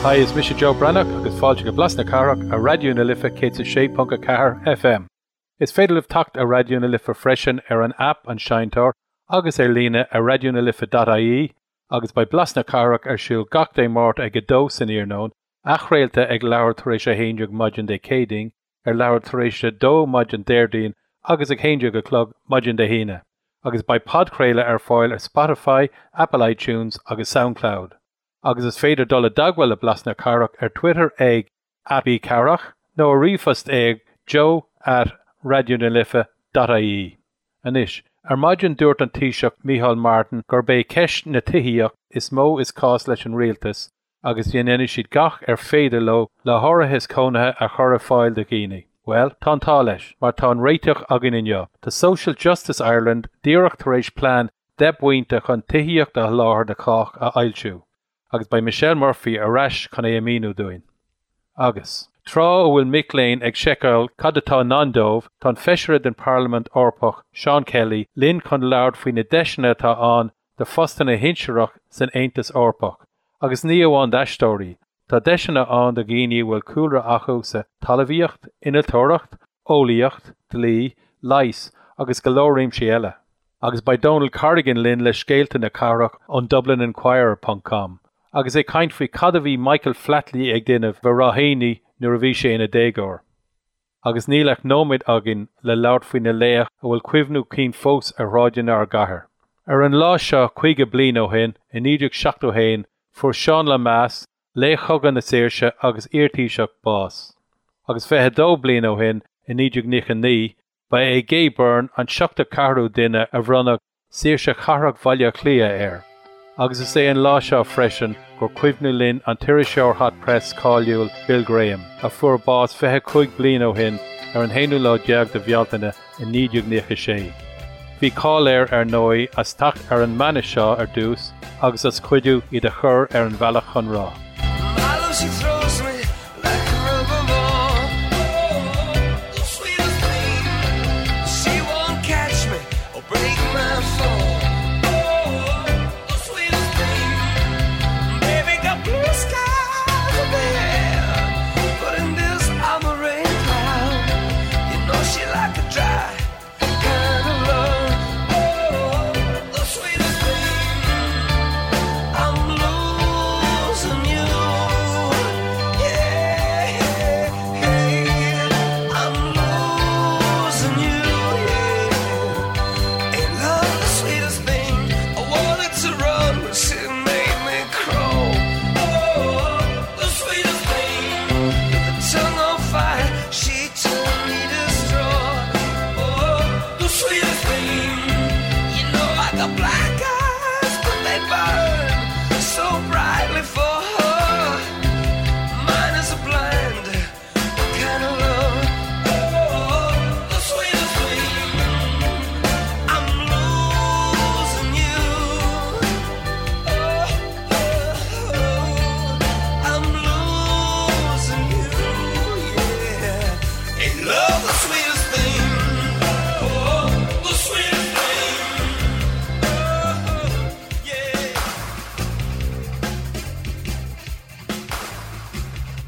Hi, is mise Joe Breathnach agus fáilte go Blas na Cathrach ar Raidió na Life 106.4 FM. Is féidir libh teacht ar Raidió na Life freisin ar an aip An Seinnteoir agus ar líne ar raidionalife.ie agus beidh Blas na Cathrach ar siúl gach Dé Máirt ag 2 san iarnóin, athchraolta ag leathuair tar éis 11 maidin Dé Céadaoin, ar leathuair tar éis 2 maidin Déardaoin agus ag 11 a chlog maidin Dé hAoine, agus beidh podchraoladh ar fáil ar Spotify, Apple iTunes agus Soundcloud. Agus is féidir dul i dteagmháil le Blas na Cathrach ar Twitter ag @bcathrach nó ar ríomhphost ag joe at raidionalife.ie. Anois, ar maidin dúirt an Taoiseach Micheál Martin gurb é ceist na tithíochta is mó is cás leis an rialtas agus dhéanfaidh siad gach ar féidir leo le háitheas cónaithe a chur ar fáil do dhaoine. Bhuel, tá an t-ádh leis, mar tá an réiteach againn inniu. Tá Social Justice Ireland díreach tar éis plean 10 bpointe chun tithíocht a sholáthar do chách a fhoilsiú, agus beidh Michelle Murphy ar ais chun é a mhíniú dúinn. Agus, tráth a bhfuil mic léinn ag seiceáil cad atá i ndán dóibh, tá an Feisire den Pharlaimint Eorpach, Seán Kelly, linn chun labhairt faoi na deiseanna atá ann do phostanna shinsearach san Aontas Eorpach, agus ní amháin d'aisteoirí, tá deiseanna ann do dhaoine a bhfuil cúlra acu sa talmhaíocht, innealtóireacht, eolaíocht, dlí, leigheas agus go leor réimsí eile. Agus beidh Donal Corrigan linn le scéalta na cathrach ón DublinInquirer ponc com agus é ag caint faoi cad a bhí Michael Flatley ag déanamh i Ráth Éanaigh nuair a bhí sé ina dhéagóir. Agus níl ach nóiméad againn le labhairt faoi na laoch a bhfuil cuimhniú cinn fós ar shráideanna ár gcathair. Ar an lá seo 50 bliain ó shin, i 1971, fuair Seán Lemass, laoch Chogadh na Saoirse agus iar-Thaoiseach, bás. Agus 22 bliain ó shin, i 1999, Ba é Gay Byrne an 74ú duine a bhronnadh Saoirse Chathrach Bhaile Átha Cliath air, agus is é an lá seo freisin gur cuimhin linn an t-iriseoir Hot Press cáiliúil Bill Graham, a fuair bás 25 bliain ó shin ar an haonú lá déag de Bhealtaine i 1996. Bhí cáil air, ar ndóigh, as teacht ar an mbanna seo ar dtús agus as cuidiú iad a chur ar an bhealach chun rath.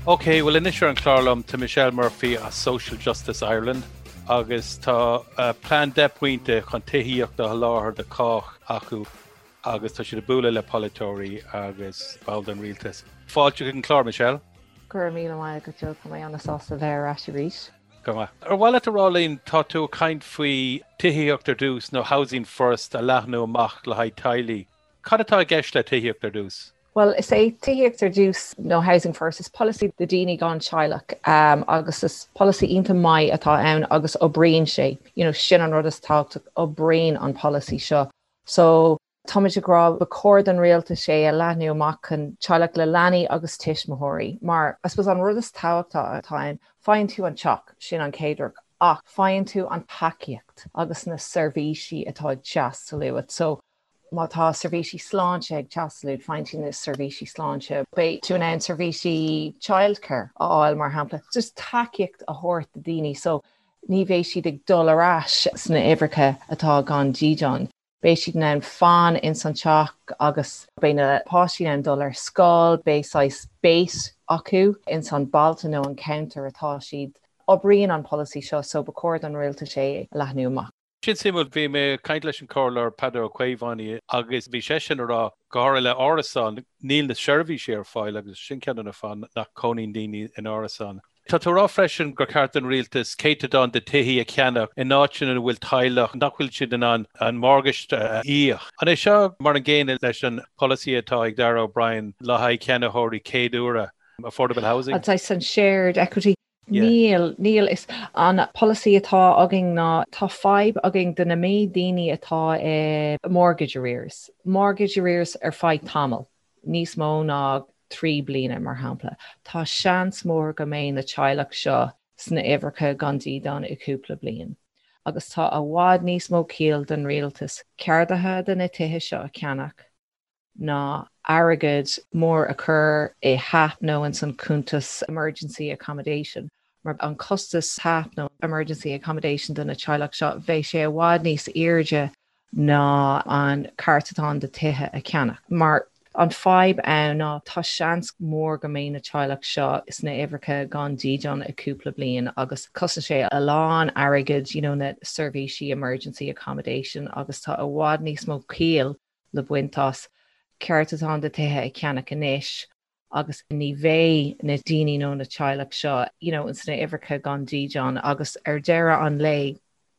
Ok, bhuel anois ar an chlár liom tá Michelle Murphy as Social Justice Ireland agus tá plean 10 pointe chun tithíocht a sholáthar do chách acu agus tá siad ag bualadh le polaiteoirí agus baill den rialtas. Fáilte chuig an chlár, Michelle. Go raibh míle maith agat, Joe. Tá mé an-sásta bheith ar ais arís. Go maith. Ar mhaith leat a rá linn, tá tú ag caint faoi tithíocht ar dtús nó Housing First a leathnú amach le haghaidh teaghlaigh. Cad atá i gceist le tithíocht ar dtús? Bhuel, is é Tithíocht ar dTús nó Housing First, is polasaí do daoine gan teaghlach agus is polasaí iontach maith atá ann agus oibríonn sé. You know, sin an rud is tábhachtach, oibríonn an polasaí seo. So, táimid ag rá ba chóir don rialtas é a leathnú amach chun teaghlach le leanaí agus tuismitheoirí mar, I suppose, an rud is tábhachtach atá ann, faigheann tú an teach, sin an chéad rud, ach faigheann tú an tacaíocht agus na seirbhísí atá ag teastáil uait. So, Má tá seirbhísí sláinte ag teastáil uait, faigheann tú na seirbhísí sláinte. Beidh tú in ann seirbhísí childcare a fháil, mar shampla. Just tacaíocht a thabhairt do daoine so ní bheidh siad ag dul ar ais sna uimhreacha atá gan dídean. Beidh siad in ann fan ins an teach agus beidh na páistí in ann dul ar scoil, beidh saghas base acu ins an bailte nó an ceantar atá siad. Oibríonn an polasaí seo so ba chóir don rialtas é a leathnú amach. Sin suimiúil, bhí mé ag caint leis an Comhairleoir Peadar Ó Caomhánaigh agus bhí seisean ag rá, go háirithe le árasáin, níl na seirbhísí ar fáil agus sin ceann de na fáthanna nach cónaíonn daoine in árasáin. Tá tú ag rá freisin gur cheart don rialtas céatadán de tithí a cheannach in áiteanna ina bhfuil teaghlach nach bhfuil siad in ann an morgáiste a íoc. An é seo mar an gcéanna leis an polasaí atá ag Darragh O'Brien le haghaidh ceannaitheoirí céad uaire, affordable housing? An saghas an shared equity? Níl, níl. Is an polasaí atá againn ná tá fadhb againn do na méid daoine atá i mortgage arrears, mortgage arrears ar feadh tamall, níos mó ná 3 bliana mar shampla. Tá seans mór go mbeidh na teaghlach seo sna uimhreacha gan dídean i cúpla bliain. Agus tá i bhfad níos mó ciall don rialtas ceardaithe de na tithe seo a cheannach, ná airgead mór a chur i HAP nó ins an cuntas emergency accommodation, mar an costas HAP nó emergency accommodation do na teaghlach seo, bheadh sé i bhfad níos airde ná an céatadán de tithe a cheannach. Mar an fadhb ann ná tá seans mór go mbeidh na teaghlach seo sna uimhreacha gan dídean i cúpla bliain agus cosnaíonn sé a lán airgead you know na seirbhísí emergency accommodation agus tá i bhfad níos mó ciall le baint as céatadán de tithe a cheannach anois agus ní bheidh na daoine nó na teaghlach seo you know sna uimhreacha gan dídean agus ar deireadh an lae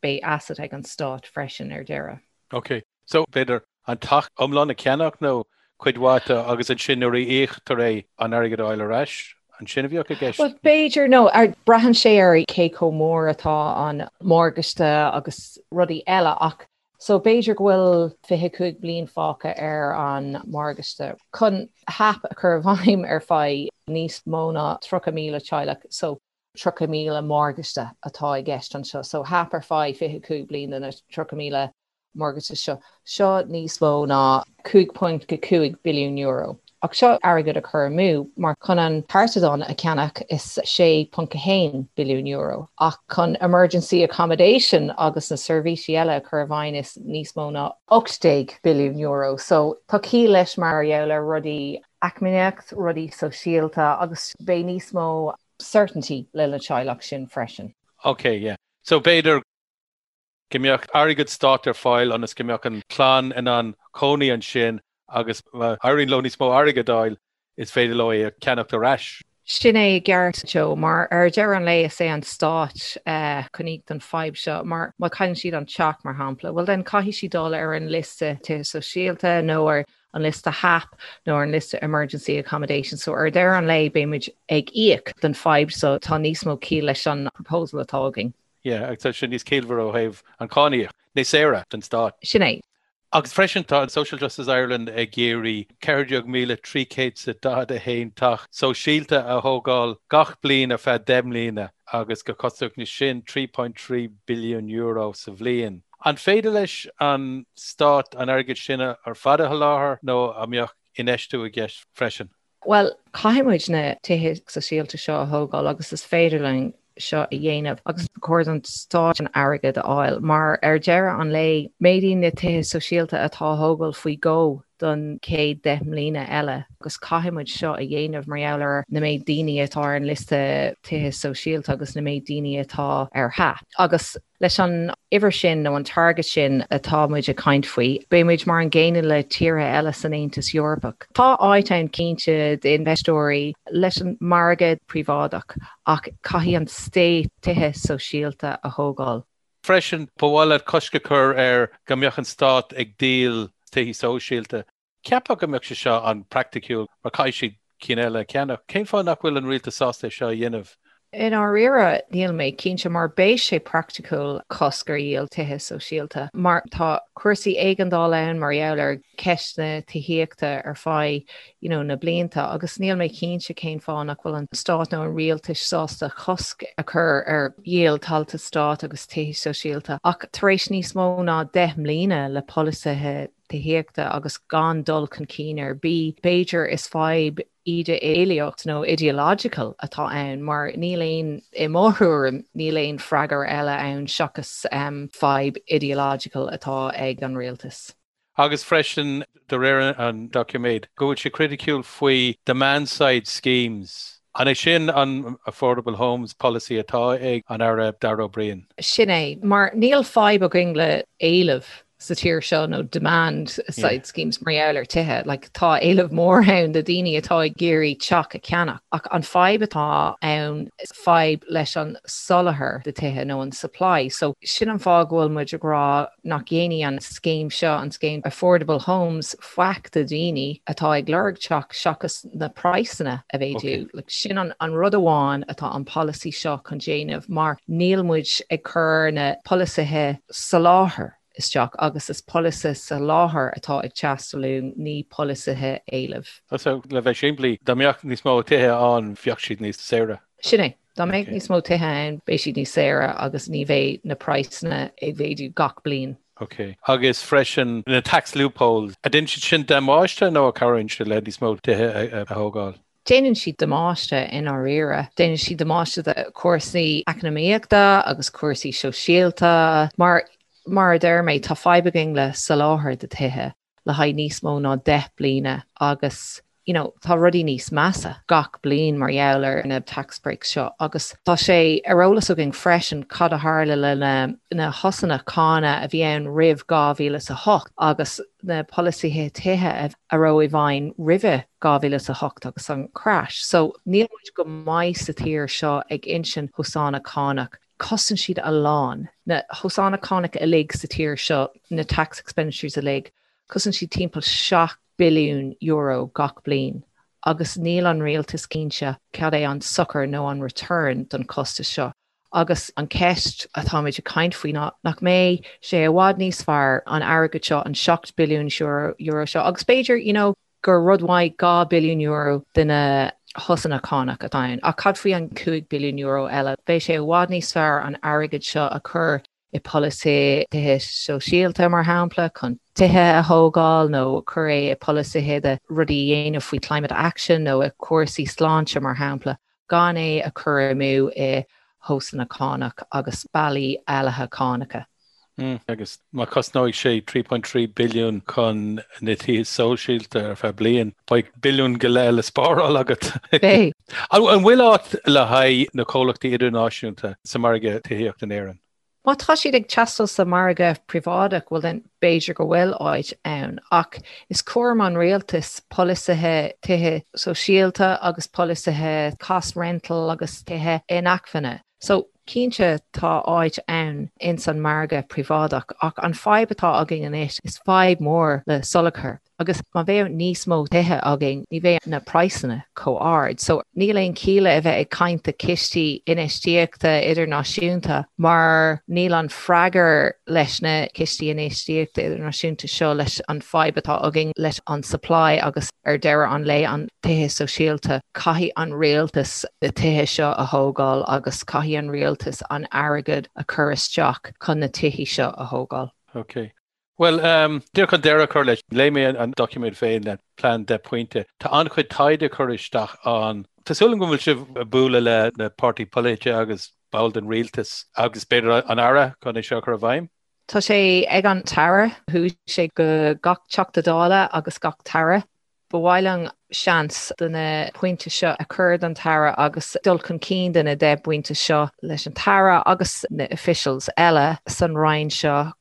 beidh asset ag an stát freisin ar deireadh. Ok, so b'fhéidir an teach iomlán a cheannach nó cuid mhaith de agus ansin nuair a íoctar é an airgead a fháil ar ais, an sin a bheadh i gceist? Well b'fhéidir nó braitheann sé ar cé chomh mór atá an morgáiste agus rudaí eile ach So b'fhéidir go bhfuil 25 bliain fágtha ar an morgáiste chun HAP a chur i bhfeidhm ar feadh níos mó ná 30,000 teaghlach. So 30,000 morgáiste atá i gceist anseo. So HAP ar feadh 25 bliain do na 30,000 morgáiste seo. Seo níos mó ná 5.5 billiún euro. Ach seo airgead a chur amú, mar chun an céatadán a cheannach is €6.1 billiún, ach chun emergency accommodation agus na seirbhísí eile a chur i bhfeidhm is níos mó ná €18 billiún. So tá ciall leis mar gheall ar rudaí eacnamaíocht, rudaí sóisialta agus beidh níos mó certainty le na teaghlach sin freisin. Ok, yeah. So b'fhéidir go mbeadh airgead stáit ar fáil ionas go mbeadh an chlann in ann cónaí ansin agus má éiríonn leo níos mó airgid a fháil, is féidir leo é a cheannacht ar ais. Sin é i gceart, Joe, mar ar deireadh an lae is é an stát chun íoc don fadhb seo, mar má chailleann siad an teach, mar shampla, well then caithfidh siad dul ar an liosta tithe sóisialta nó ar an liosta HAP nó ar an liosta emergency accommodation, so ar deireadh an lae beidh muid ag íoc don fadhb so tá níos mó ciall leis an proposal atá againn. Yeah, agus tá sé níos ciallmhaire ó thaobh an cáiníoc, níos saoire don stát. Sin é. Agus freisin tá Social Justice Ireland ag iarraidh 14,341 teach sóisialta a thógáil gach bliain ar feadh 10 mbliana agus go cosnódh sin €3.3 billiún sa bhliain. An féidir leis an stát an airgead sin ar fad a sholáthar nó an mbeadh infheistiú i gceist freisin? Bhuel, caithfidh muid na tithe sóisialta seo a thógáil agus is féidir linn seo a dhéanamh agus ba chóir don stát an airgead a fháil mar ar deireadh an lae, méadaíonn na tithe sóisialta atá á thógáil faoi dhó don chéad 10 mbliana eile agus caithfidh muid seo a dhéanamh mar gheall ar na méid daoine atá ar an liosta tithe sóisialta agus na méid daoine atá ar HAP. Agus Leis an uimhir sin nó an target sin atá muid ag caint faoi, beidh muid mar an gcéanna le tíortha eile san Aontas Eorpach. Tá áit ann cinnte d'infheisteoirí leis an margadh príobháideach ach caithfidh an state tithe sóisialta a thógáil. Freisin, ba mhaith leat cosc a chur ar go mbeadh an stát ag díol tithe sóisialta. Cheapfá go mbeadh sé seo an-phraiticiúil mar caithfidh siad cinn eile a cheannach. Cén fáth nach bhfuil an rialtas sásta é seo a dhéanamh? I ndáiríre, níl mé cinnte mar beidh sé praiticiúil cosc ar dhíol tithe sóisialta mar tá cúrsaí éigeandála ann mar gheall ar cheist na tithíochta ar feadh you know, na blianta agus níl mé cinnte cén fáth nach bhfuil an stát nó an rialtais sásta cosc a chur ar dhíol tailte stáit agus tithe sóisialta ach tar éis níos mó ná 10 mbliana le polasaithe. tithíochta agus gan dul chun cinn ar bith, b'fhéidir is fadhb idé-eolaíocht nó ideological atá ann mar níl aon, i mo thuairim, níl aon freagra eile ann seachas fadhb ideological atá ag an rialtas. Agus freisin, de réir an doiciméid, go bhfuil sé criticiúil faoi demand side schemes. An é sin an Affordable Homes Policy atá ag an Aire Darragh O'Brien? Sin é, mar níl fadhb againn le éileamh sa tír seo nó demand side schemes mar gheall ar tithe. Like, tá éileamh mór ann de daoine atá ag iarraidh teach a cheannach. Ach an fadhb atá ann, fadhb leis an soláthar de tithe nó an supply. So sin an fáth go bhfuil muid ag rá nach dhéanfaidh an scéim seo, an scéim Affordable Homes, faic do dhaoine atá ag lorg teach seachas na praghsanna a mhéadú. Like, sin an, an rud amháin atá an polasaí seo chun déanamh mar níl muid ag cur na polasaithe soláthair isteach agus is polasaithe soláthair atá ag teastáil uainn, ní polasaithe éilimh. So, le bheith simplí, dá mbeadh níos mó tithe ann, bheadh siad níos saoire. Sin é. Dá mbeadh níos mó tithe ann, beidh siad níos saoire agus ní bheidh na praghsanna ag mhéadú gach bliain. Ok. Agus freisin, na tax loopholes, an ndéanann siad sin damáiste nó an cabhraíonn siad le níos mó tithe a thógáil? Déanann siad damáiste i ndáiríre. Déanann siad damáiste do chúrsaí eacnamaíochta agus cúrsaí sóisialta. Mar, mar a deir mé, tá fadhb againn le soláthar de tithe le haghaidh níos mó ná 10 bliana agus you know, tá rudaí níos measa gach bliain mar gheall ar na tax breaks seo agus tá sé ar eolas againn freisin cad a tharla le na, na shosanna cánach a bhí ann roimh 2008 agus na polasaithe tithe a raibh i bhfeidhm roimhe 2008 agus an crash. So níl muid go maith sa tír seo ag insint shosanna cánach. Cosnaíonn siad a lán. Na shosanna cánach uilig sa tír seo, na tax expenditures uilig, cosnaíonn siad timpeall €7 billiún gach bliain agus níl an rialtas cinnte cad é an sochar nó an return don chostas seo. Agus an ceist atáimid ag caint faoi ná nach mbeidh sé i bhfad níos fearr an airgead seo, an €7 billiún seo, agus b'fhéidir, you know, gur rud maith €2 billiún de na shosanna cánach atá ann, ach cad faoi an €5 billiún eile? Beidh sé i bhfad níos fearr an airgead seo a chur i polasaithe tithe sóisialta, mar shampla, chun tithe a thógáil nó cur é i polasaithe de rudaí a dhéanamh faoi climate action nó i cúrsaí sláinte, mar shampla, gan é a chur amú i shosanna cánach agus bealaí éalaithe cánacha. Agus má chosnóidh sé 3.3 billiún chun na tithe sóisialta ar feadh bliain, beidh billiún go leith le spáráil agat. Beidh. An bhfuil áit le haghaidh na comhlachtaí idirnáisiúnta sa margadh tithíochta in Éirinn? Má tá siad ag teastáil sa margadh príobháideach, bhuel then b'fhéidir go bhfuil áit ann. Ach is cúram an rialtais polasaithe tithe sóisialta agus polasaithe cost rental agus tithe inacmhainne. So, cinnte tá áit ann ins an margadh príobháideach ach an fadhb atá againn anois is fadhb mór le soláthar agus má bheadh níos mó tithe againn ní bheadh na praghsanna chomh ard. So níl aon chiall a bheith ag caint de cistí infheistíochta idirnáisiúnta mar níl an freagar leis na cistí infheistíochta idirnáisiúnta seo leis an fadhb atá againn leis an supply agus ar deireadh an lae an tithe sóisialta. Caithfidh an rialtas na tithe seo a thógáil agus caithfidh an rialtas an airgead a chur isteach chun na tithe seo a thógáil. Ok. Bhuel, díreach chun deireadh a chur leis, léigh mé an doiciméad féin, an plean 10 pointe. Tá an-chuid taighde curtha isteach ann. Tá súil agam go bhfuil sibh ag bualadh le na páirtí polaite agus ball den rialtas agus b'fhéidir an Aire chun é seo a chur i bhfeidhm. Tá sé ag an tAire. Chuaigh sé go gach Teachta Dála agus gach tAire. Ba mhaith linn seans de na pointe seo a chur don tAire agus dul chun cinn de na 10 bpointe seo leis an tAire agus na officials eile san Roinn seo.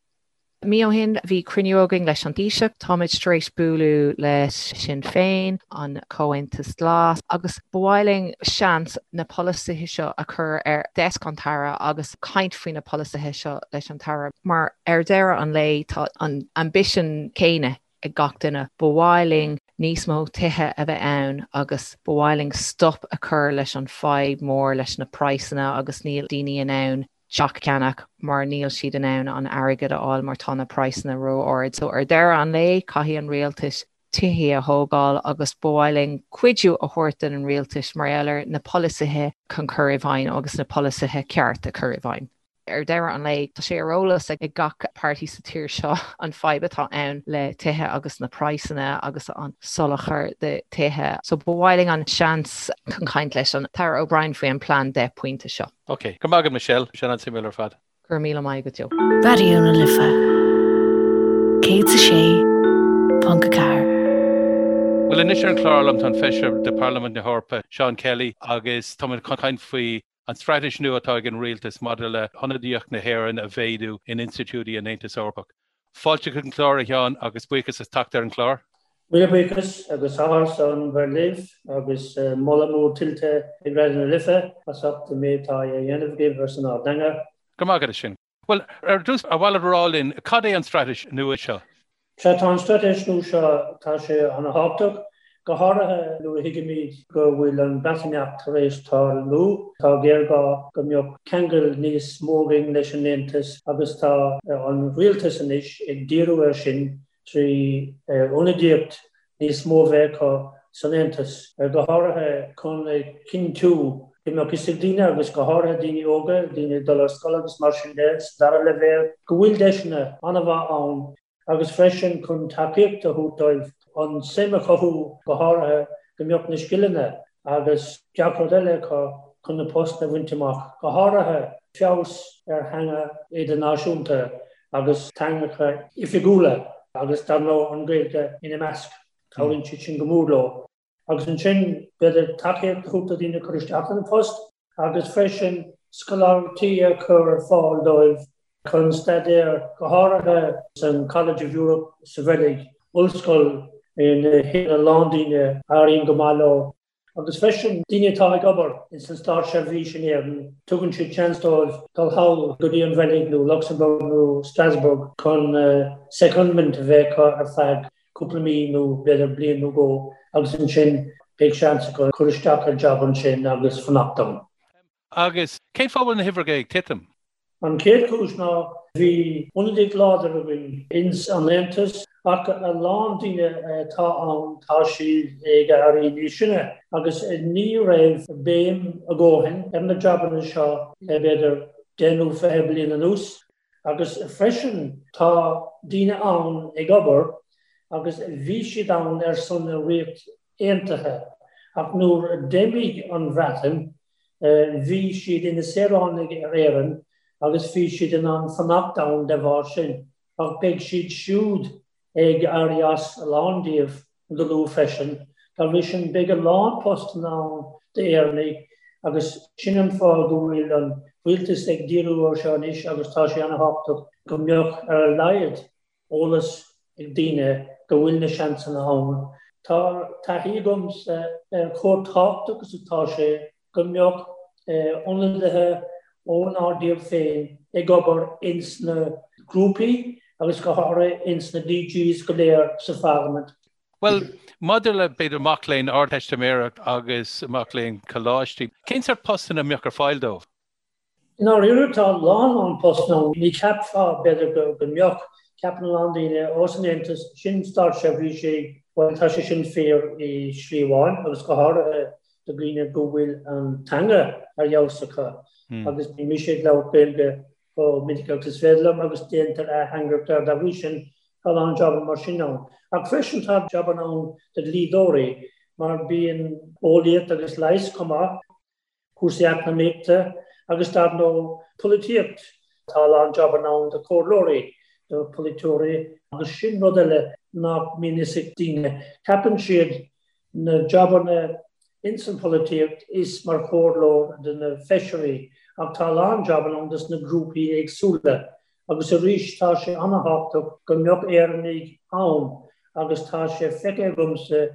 Mí ó shin bhí cruinniú againn leis an Taoiseach. Táimid tar éis bualadh le Sinn Féin, an Comhaontas Glas agus ba mhaith linn seans na polasaithe seo a chur ar desk an tAire agus caint faoi na polasaithe seo leis an tAire mar ar deireadh an lae tá an ambition céanna ag gach duine. Ba mhaith linn níos mó tithe a bheith ann agus ba mhaith linn stop a chur leis an fadhb mór leis na praghsanna agus níl daoine in ann teach a cheannach mar níl siad in ann an airgead a fháil mar tá na praghsanna ró-ard. So ar deireadh an lae caithfidh an rialtas tithe a thógáil agus ba mhaith linn cuidiú a thabhairt don rialtas mar gheall ar na polasaithe chun cur i bhfeidhm agus na polasaithe ceart a chur i bhfeidhm. Ar deireadh an lae, tá sé ar eolas ag gach páirtí sa tír seo an fadhb atá ann le tithe agus na praghsanna agus an soláthar de tithe. So ba mhaith linn an seans chun caint leis an tAire O'Brien faoi an plean 10 pointe seo. Ok. Go raibh maith agat Michelle. Sin an-suimiúil ar fad. Go raibh míle maith agat Joe. Raidió na Life 106.4. Bhuel anois ar an chlár liom tá an Feisire de Parlaimint na hEorpa, Seán Kelly, agus táimid chun caint faoi an straitéis nua atá ag an rialtas maidir le hionadaíocht na hÉireann a mhéadú in institiúidí an Aontais Eorpaigh. Fáilte chuig an chlár, a Sheáin, agus buíochas as teacht ar an chlár. Míle buíochas agus áthas orm bheith libh agus moladh mór tuillte ag Raidió na Life as ucht an méid atá á dhéanamh agaibh ar son ár dteanga. Go raibh maith agat as sin. Bhuel, ar dtús, ar mhaith leat a rá linn cad é an straitéis nua seo? Sea, tá an straitéis nua seo, tá sé ana-thábhachtach, go háirithe nuair a thuigimid go bhfuil an Breatimeacht tar éis tarlú. Tá géarghá go mbeadh ceangal níos mó againn leis an Aontas agus tá an rialtas anois ag díriú air sin 3 ionadaíocht níos mó a bheith acu san Aontas, go háirithe chun a chinntiú go mbeadh fhios ag daoine, agus go háirithe daoine óga, daoine ag dul ar scoil agus mar sin de, sa dara leibhéal, go bhfuil deiseanna an-mhaith ann agus freisin chun tacaíocht a thabhairt dóibh an suim a chothú, go háirithe go mbeadh na scileanna agus gach rud eile acu chun na postanna a bhaint amach, go háirithe feabhas ar theanga idirnáisiúnta agus teangacha oifigiúla agus dar ndóigh an Ghaeilge ina measc. Cabhraíonn siad sin go mór leo. Agus ansin b'fhéidir tacaíocht a thabhairt do dhaoine cur isteach ar an phost agus freisin scoláireachtaí a chur ar fáil dóibh chun staidéar, go háirithe san College of Europe sa Bheilg, ollscoil ina théann a lán daoine a éiríonn go maith leo. Agus freisin, daoine atá ag obair ins an státseirbhís in Éirinn, tugann siad seans dóibh dul thall go dtí an Bheilg nó Luxembourg nó Strasbourg chun secondment a bheith acu ar feadh cúpla mí nó b'fhéidir bliain nó dhó agus ansin beidh seans acu cur isteach ar jab ansin agus fanacht ann. Agus cén fáth a bhfuil na huimhreacha ag titim? An chéad chúis ná bhí ionadaíocht láidir againn ins an Aontas ach a lán daoine atá ann tá siad ag éirí níos sine agus ní raibh béim a dhóthain ar na jabanna seo le b'fhéidir 10 nó 20 bliain anuas agus freisin tá daoine ann ag obair agus bhí siad ann ar son na Ríocht Aontaithe ach nuair a d'imigh an Bhreatain Bhí siad ina saoránaigh ar Éirinn agus bhí siad in ann fanacht ann de bharr sin, ach beidh siad siúd ag éirí as, a lán díobh, go luath freisin. Dá bhrí sin, beidh a lán postanna ann d'Éireannaigh agus sin an fáth go bhfuil an rialtas ag díriú air seo anois agus tá sé ana-thábhachtach go mbeadh ar a laghad eolas ag daoine go bhfuil na seansanna ann. Tá taithí agamsa ar chomh tábhachtach is atá sé go mbeadh ionadaithe ónár dtír féin ag obair ins na grúpaí agus go háirithe ins na DGs go léir sa Pharlaimint. Bhuel, maidir le, b'fhéidir, mac léinn Ardteistiméireacht agus mac léinn coláistí, cén sórt postanna a mbeadh ar fáil dóibh? I ndáiríre tá a lán lán postanna ann. Ní cheapfá, b'fhéidir, go mbeadh. Ceapann a lán daoine, ó san Aontas, sin státseirbhísigh, bhuel tá sé sin fíor i slí amháin agus go háirithe do dhaoine go bhfuil an teanga ar fheabhas acu agus bíonn mise ag labhairt Gaeilge chomh minic agus is féidir liom agus déantar ateangaireacht air dá bhrí sin tá a lán jabanna mar sin ann. Ach freisin tá jabanna ann do dhlíodóirí mar bíonn eolaíocht agus leigheas chomh maith. cúrsaí eacnamaíochta agus dar ndóigh polaitíocht. Tá a lán jabanna ann do chomhairleoirí, do pholaiteoirí agus sin rud eile nach mbíonn fhios ag daoine. Ceapann siad na jabanna ins an pholaitíocht is mar chomhairleoir do na feisirí ach tá a lán jabanna ann dos na grúpaí éagsúla agus arís tá sé ana-thábhachtach go mbeadh Éireannaigh ann agus tá sé feicthe agamsa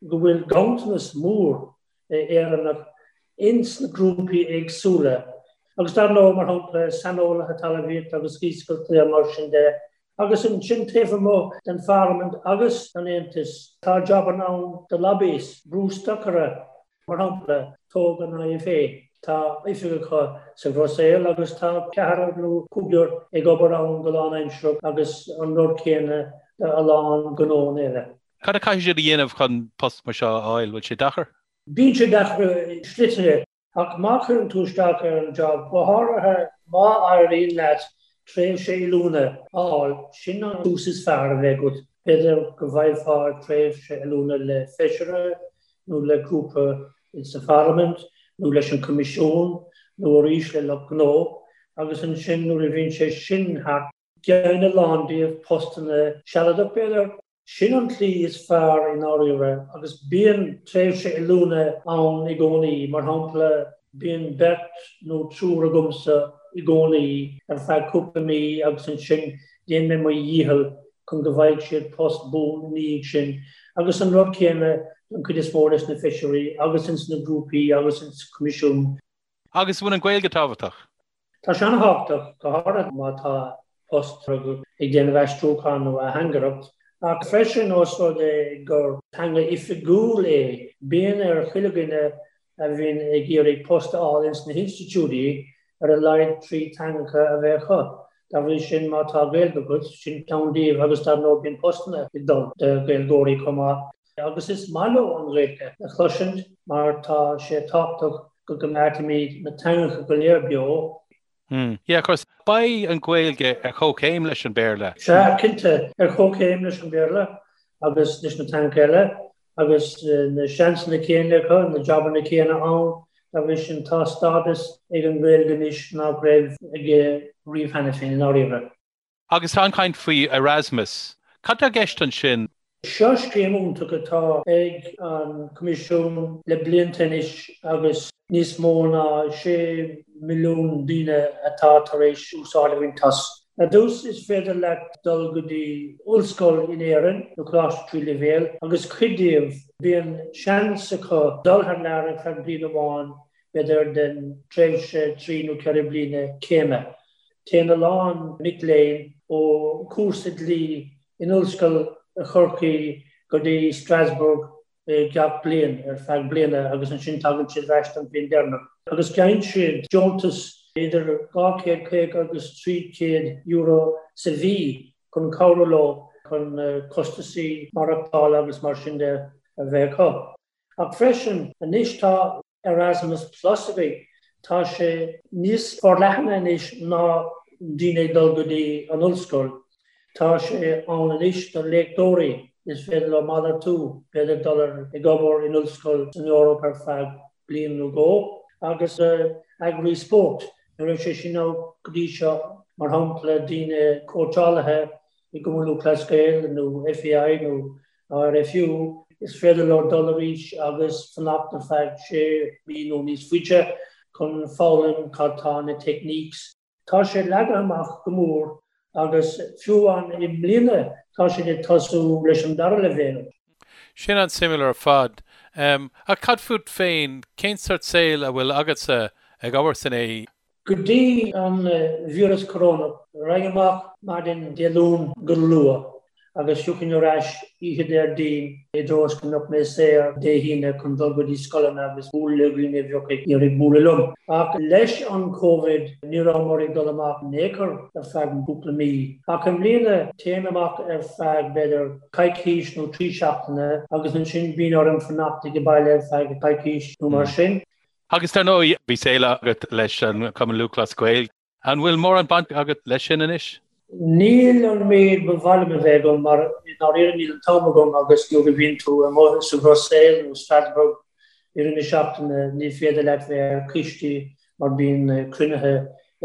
go bhfuil ganntanas mór Éireannach ins na grúpaí éagsúla agus dar ndóigh, mar shampla, saineolaithe talmhaíochta agus iascaireachta mar sin de. Agus ansin taobh amuigh den Pharlaimint agus an Aontas, tá jabanna ann do lobbyists, brústocairí, mar shampla, tóg an IFA, tá oifig acu sa Bhruiséil agus tá ceathrar nó cúigear ag obair ann go lánaimsearach agus an rud céanna do a lán gnóanna eile. Cad a chaithfidh siad a dhéanamh chun post mar seo a fháil? Bhfuil sé deacair? Bíonn sé deacair i slite, ach má chuireann tú isteach ar an job, go háirithe Má éiríonn leat tréimhse oiliúna a fháil, sin an tús is fearr a bheidh agat. B'fhéidir go bhfaighfeá tréimhse oiliúna le feisire nó le grúpa sa Pharlaimint nó leis an Coimisiún nó arís le lucht gnó agus ansin nuair a bhíonn sé sin thart, Geibheann a lán díobh postanna sealadach, b'fhéidir. Sin an tslí is fearr i ndáiríre agus bíonn tréimhse oiliúna ann i gcónaí, mar shampla bíonn beirt nó triúr agamsa i gcónaí ar feadh cúpla mí agus ansin déanann mé mo dhícheall chun go bhfaighidh siad post buan ina dhiaidh sin agus an rud céanna don chuid is mó des na feisirí agus ins na grúpaí agus ins Coimisiún. Agus an bhfuil an Ghaeilge tábhachtach? Tá sé an-thábhachtach, go háirithe má tá post agat ag déanamh aistriúchán nó atheangaireacht, ach freisin ós rud é gur teanga oifigiúil é, bíonn ar chuile dhuine a bhíonn ag iarraidh post a fháil ins na hinstitiúidí ar a laghad 3 teangacha a bheith acu. Dá bhrí sin, má tá Gaeilge agat, sin ceann díobh agus dar ndóigh bíonn postanna ag dul do Ghaeilgeoirí chomh maith. Agus is maith leo an Ghaeilge a chloisint mar tá sé tábhachtach go gcoimeádfaimid na teangacha go léir beo. Hmm. Yeah, of course. Beidh an Ghaeilge ar chomhchéim leis an Béarla. Sea, cinnte, ar chomhchéim leis an Béarla agus leis na teangacha eile agus na seansanna céanna acu, na jabanna céanna ann. Dá bhrí sin, tá stádas ag an nGaeilge anois nach raibh aige riamh cheana féin, i ndáiríre. Agus tá an-chaint faoi Erasmus. Cad tá i gceist ansin? Seo scéim iontach atá ag an Coimisiún le blianta anois agus níos mó ná 6 milliún daoine atá tar éis úsáid a bhaint as. Ar dtús is féidir leat dul go dtí ollscoil in Éirinn nó coláiste tríú leibhéal agus cuid díobh bíonn seans acu dul thar lear ar feadh bliain amháin b'fhéidir den tréimhse 3 nó 4 bliana céime. Téann a lán mic léinn ó chúrsa dlí in Ollscoil Chorcaí go dtí Strasbourg gach bliain ar feadh bliana agus ansin tagann siad ar ais don bhliain deireanach agus geibheann siad deontas idir €250 agus €300 sa mhí chun cabhrú leo chun costasaí maireachtála agus mar sin de a bheith acu. Ach freisin, anois tá Erasmus Plus againn. Tá sé níos forleathana anois ná daoine ag dul go dtí an ollscoil. Tá sé ann anois do léachtóirí, is féidir leo malartú, b'fhéidir dul ag obair in ollscoil san Eoraip ar feadh bliain nó dhó, agus eagraí spóirt. Ní raibh sé sin ann go dtí seo, mar shampla daoine cóitseálaithe i gCumann Lúthchleas Gael nó FAI nó RFU, is féidir leo dul arís agus fanacht ar feadh sé mhí nó níos faide chun foghlaim cad tá na techniques. Tá sé leagtha amach go mór agus fiú amháin i mbliana tá siad ag tosú leis an dara leibhéal. Sin an-suimiúil ar fad. Ach cad fút féin, cén sort saoil a bhfuil agatsa ag obair san AE? Go dtí an víreas corónach, raghainn amach maidin Dé Luain go luath agus thiocfainn ar ais oíche Déardaoin i dtreo is go mbeadh mé saor Dé hAoine chun dul go dtí scoileanna agus bualadh le dhaoine a bheadh ag iarraidh bualadh liom. Ach leis an Covid ní rabhamar ag dul amach in aon chor ar feadh cúpla mí. Ach i mbliana téim amach ar feadh b'fhéidir coicís nó 3 seachtaine agus ansin bíonn orm fanacht ag baile ar feadh coicís nó mar sin. Agus dar ndóigh, bhí saol agat leis an Chumann Lúthchleas Gael. An bhfuil mórán baint agat leis sin anois? Níl an méid ba mhaith liom a bheith agam mar i ndáiríre níl an t-am agam agus nuair a bhíonn tú amuigh sa Bhruiséil nó Strasbourg i rith na seachtaine ní féidir leat bheith ar coistí mar bíonn cruinnithe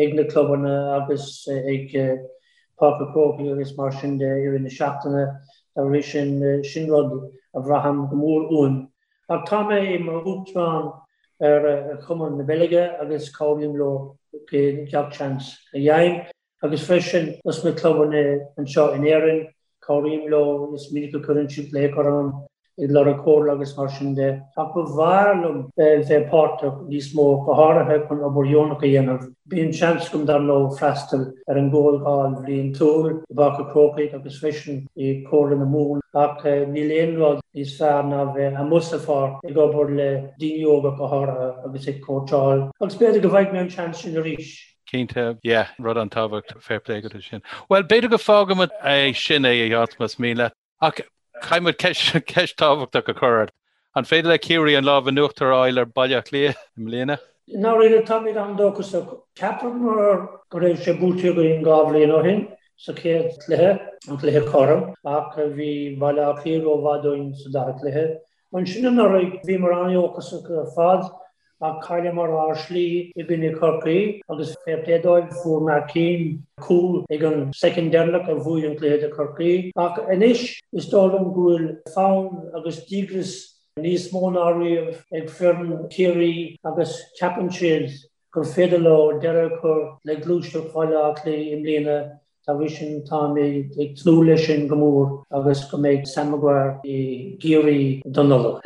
ag na clubanna agus ag Páirc an Chrócaigh agus mar sin de i rith na seachtaine. Dá bhrí sin, sin rud a bhraithim go mór uaim. Ach tá mé i m'uachtarán ar Chumann na Beilge agus cabhraím leo gach seans a fhaighim. Agus freisin dos na clubanna anseo in Éirinn, cabhraím leo, is minic a chuireann siad glaoch orm ag lorg comhairle agus mar sin de. Ach ba bhreá liom bheith páirteach níos mó, go háirithe chun obair dheonach a dhéanamh. Bíonn seans agam dar ndóigh freastal ar an gcomhdháil bhliantúil i bPáirc an Chrócaigh agus freisin i Comhairle na Mumhan ach níl aon rud níos fearr ná bheith amuigh sa pháirc ag obair le daoine óga go háirithe agus ag cóitseáil agus b'fhéidir go bhfaighidh mé an seans sin arís. Cinnte, yeah, rud an-tábhachtach, fair play agat ansin. Bhuel, b'fhéidir go bhfágfaimid é sin é, a Sheáin, más mian leat. Ach caithfidh muid ceist tábhachtach a chur ort. An féidir le Ciarraí an lámh in uachtar a fháil ar Bhaile Átha Cliath i mbliana? I ndáiríre táimid an-dóchasach. Cheapamar go raibh sé buaite againn 2 bhliain ó shin sa chéad chluiche, an cluiche cothrom, ach bhí Baile Átha Cliath rómhaith dúinn sa dara cluiche. Ansin anuraidh bhíomar an-dhóchasach ar fad ach chailleamar ár slí i gcoinne Chorcaí agus fair play dóibh fuair Mark Keane cúl ag an soicind deireanach a bhuaigh an cluiche do Chorcaí. Ach anois is dóigh liom go bhfuil fonn agus díograis níos mó ná riamh ag foireann Chiarraí agus ceapann siad gur féidir leo deireadh a chur le gluaiseacht Bhaile Átha Cliath i mbliana Dá bhrí sin, táim ag tnúth leis sin go mór agus go mbeidh Sam Maguire i gCiarraí don Nollaig.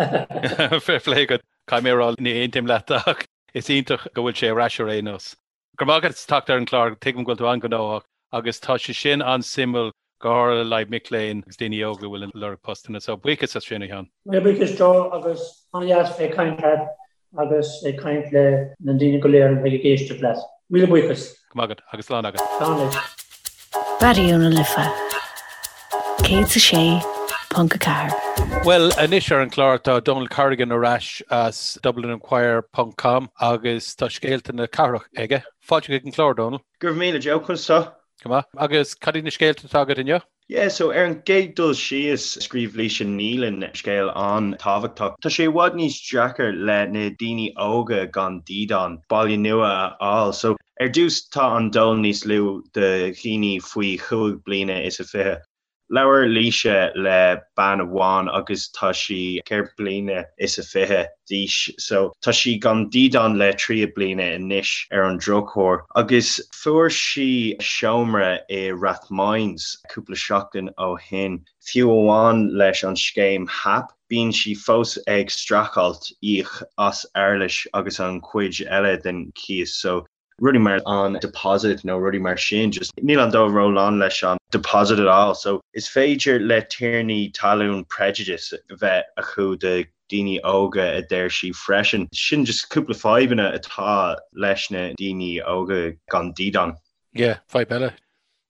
Fair play agat. Caithfidh mé a rá, ní aontaím leat ach is iontach go bhfuil sé ar ais ar aon nós. Go raibh maith agat as teacht ar an gclár, tuigim go bhfuil tú an-ghnóthach agus tá sé sin an-suimiúil go háirithe le haghaidh mic léinn agus daoine óga a bhfuil ag lorg postanna. So buíochas as sin, a Sheáin. Míle buíochas Joe agus an-dheas bheith ag caint leat agus ag caint le na daoine go léir a bheidh ag éisteacht leat. Míle buíochas. Go raibh maith agat agus slán agat. Slán leat. Raidió na Life 106.4. Bhuel, anois ar an chlár tá Donal Corrigan ar ais as DublinInquirer ponc com agus tá scéalta na cathrach aige. Fáilte chuig an chlár, Donal. Go raibh míle Joe, conas tá? Go maith. Agus cad iad na scéalta atá agat inniu? Yeah, so ar an gcéad dul síos, scríobh Laoise Nealon scéal an-tábhachtach. Tá sé i bhfad níos deacair le na daoine óga gan dídean baile nua a fháil. So ar dtús tá an dól níos lú do dhaoine faoi chúig bliana is a fiche. Labhair Laoise le bean amháin agus tá sí ceithre bliana is a fiche d'aois so tá sí gan dídean le trí bliana anois ar an drochuair agus fuair sí seomra i Rathmines cúpla seachtain ó shin. Fiú amháin leis an scéim HAP bíonn sí fós ag streachailt íoc as éarlais agus an chuid eile den chíos so rudaí mar an deposit nó rudaí mar sin, just níl an dól ró-lán leis an deposit at all. So is féidir le tiarnaí talún prejudice a bheith acu do daoine óga a deir sí freisin. Sin just cúpla fadhbanna atá leis na daoine óga gan dídean. Yeah, fadhb eile.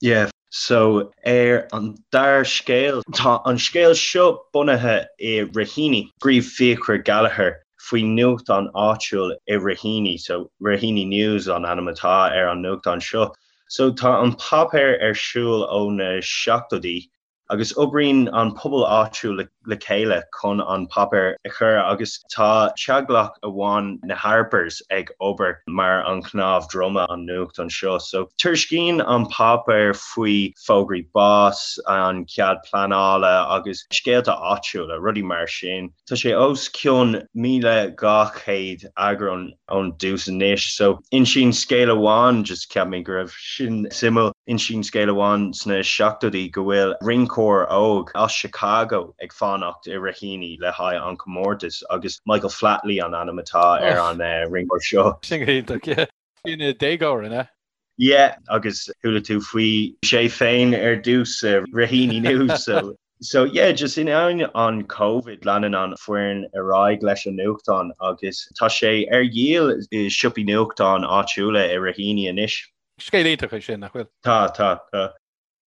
Yeah, so ar an dara scéal, tá an scéal seo bunaithe i Raheny. Scríobh Fiachra Gallagher faoi nuachtán áitiúil i Raheny, so Raheny News an ainm atá ar an nuachtán seo. So tá an páipéar ar siúl ó na seachtóidí agus oibríonn an pobal áitiúil le chéile chun an páipéar a chur agus tá teaghlach amháin na Harpers ag obair mar an chnámh droma an nuachtán seo. So tuairiscíonn an páipéar faoi fógraí bás, an cead pleanála agus scéalta áitiúla, rudaí mar sin. Tá sé os cionn 1,200 eagrán ón dtús anois. So, insíonn scéal amháin, just cheap mé go raibh sin suimiúil, insíonn scéal amháin sna seachtóidí go bhfuil rinceoir óg as Chicago ag fanacht i Raheny le haghaidh an comórtas agus Michael Flatley an ainm atá ar an rinceoir seo. Sin go hiontach, yeah. Ina dhéagóir, an ea? Yeah, agus chuala tú faoi sé féin ar dtús i Raheny News, so. So yeah, just in ainneoin an Covid, leanann an foireann ar aghaidh leis an nuachtán agus tá sé ar dhíol i siopaí nuachtán áitiúla i Raheny anois. Scéal iontach é sin, nach bhfuil? Tá, tá, tá.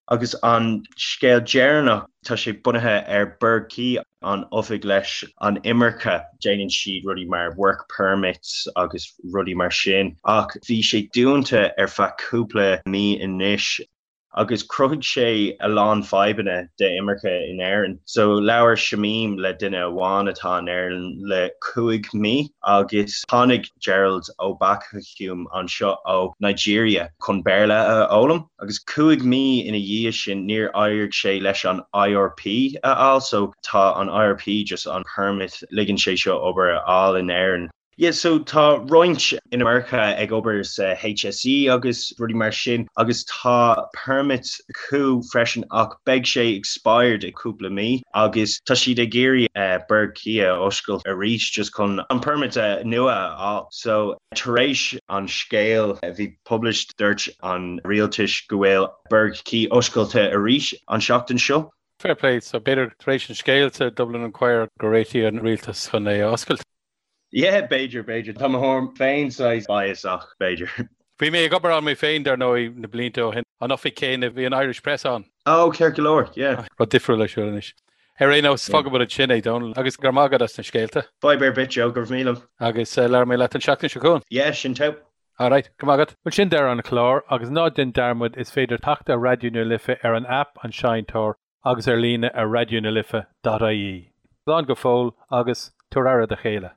Agus an scéal deireanach, tá sé bunaithe ar Burgh Quay, an oifig leis an imirce. Déanann siad rudaí mar work permits agus rudaí mar sin ach bhí sé dúnta ar feadh cúpla mí anois. agus chruthaigh sé a lán fadhbanna d'imirce in Éirinn. So labhair Shamim le duine amháin atá in Éirinn le cúig mí agus tháinig Gerald Obakahum anseo ó Nigeria chun Béarla a fhoghlaim agus cúig mí ina dhiaidh sin níor éirigh sé leis an IRP a fháil so tá an IRP just an permit ligeann sé seo obair a fháil in Éirinn. Yeah so tá roinnt inimirce ag obair sa HSE agus rudaí mar sin agus tá permit acu freisin ach beidh sé expired i cúpla mí agus tá siad ag iarraidh Burgh Quay a oscailt arís just chun an permit nua a fháil. So tar éis an scéal a bhí published dúirt an rialtais go bhfuil Burgh Quay oscailte arís an seachtain seo. Fair play, so b'fhéidir tar éis an scéil sa Dublin Inquirer go réitigh an rialtas chun é a oscailt. Yeah, b'fhéidir, b'fhéidir. Tá mo thuairim féin saghas bias ach b'fhéidir. Bhí mé ag obair ann mé féin, dar ndóigh, na blianta ó shin. An oifig céanna, bhí an Irish Press ann. Oh, ceart go leor, yeah. Rud difriúil ar siúl anois. Ar aon nós, fágfaidh muid ansin é, Dónal, agus go raibh maith agat as na scéalta. Fadhb ar bith, Joe, go raibh míle. Agus labhróidh mé leat an seachtain seo chugainn. Yeah, sin togha. Alright, go raibh maith agat. Bhuel sin deireadh an chláir agus ná déan dearmad is féidir teacht ar Raidió na Life ar an aip An Seinnteoir agus ar líne ar raidionalife.ie. Slán go fóill agus tabhair aire do chéile.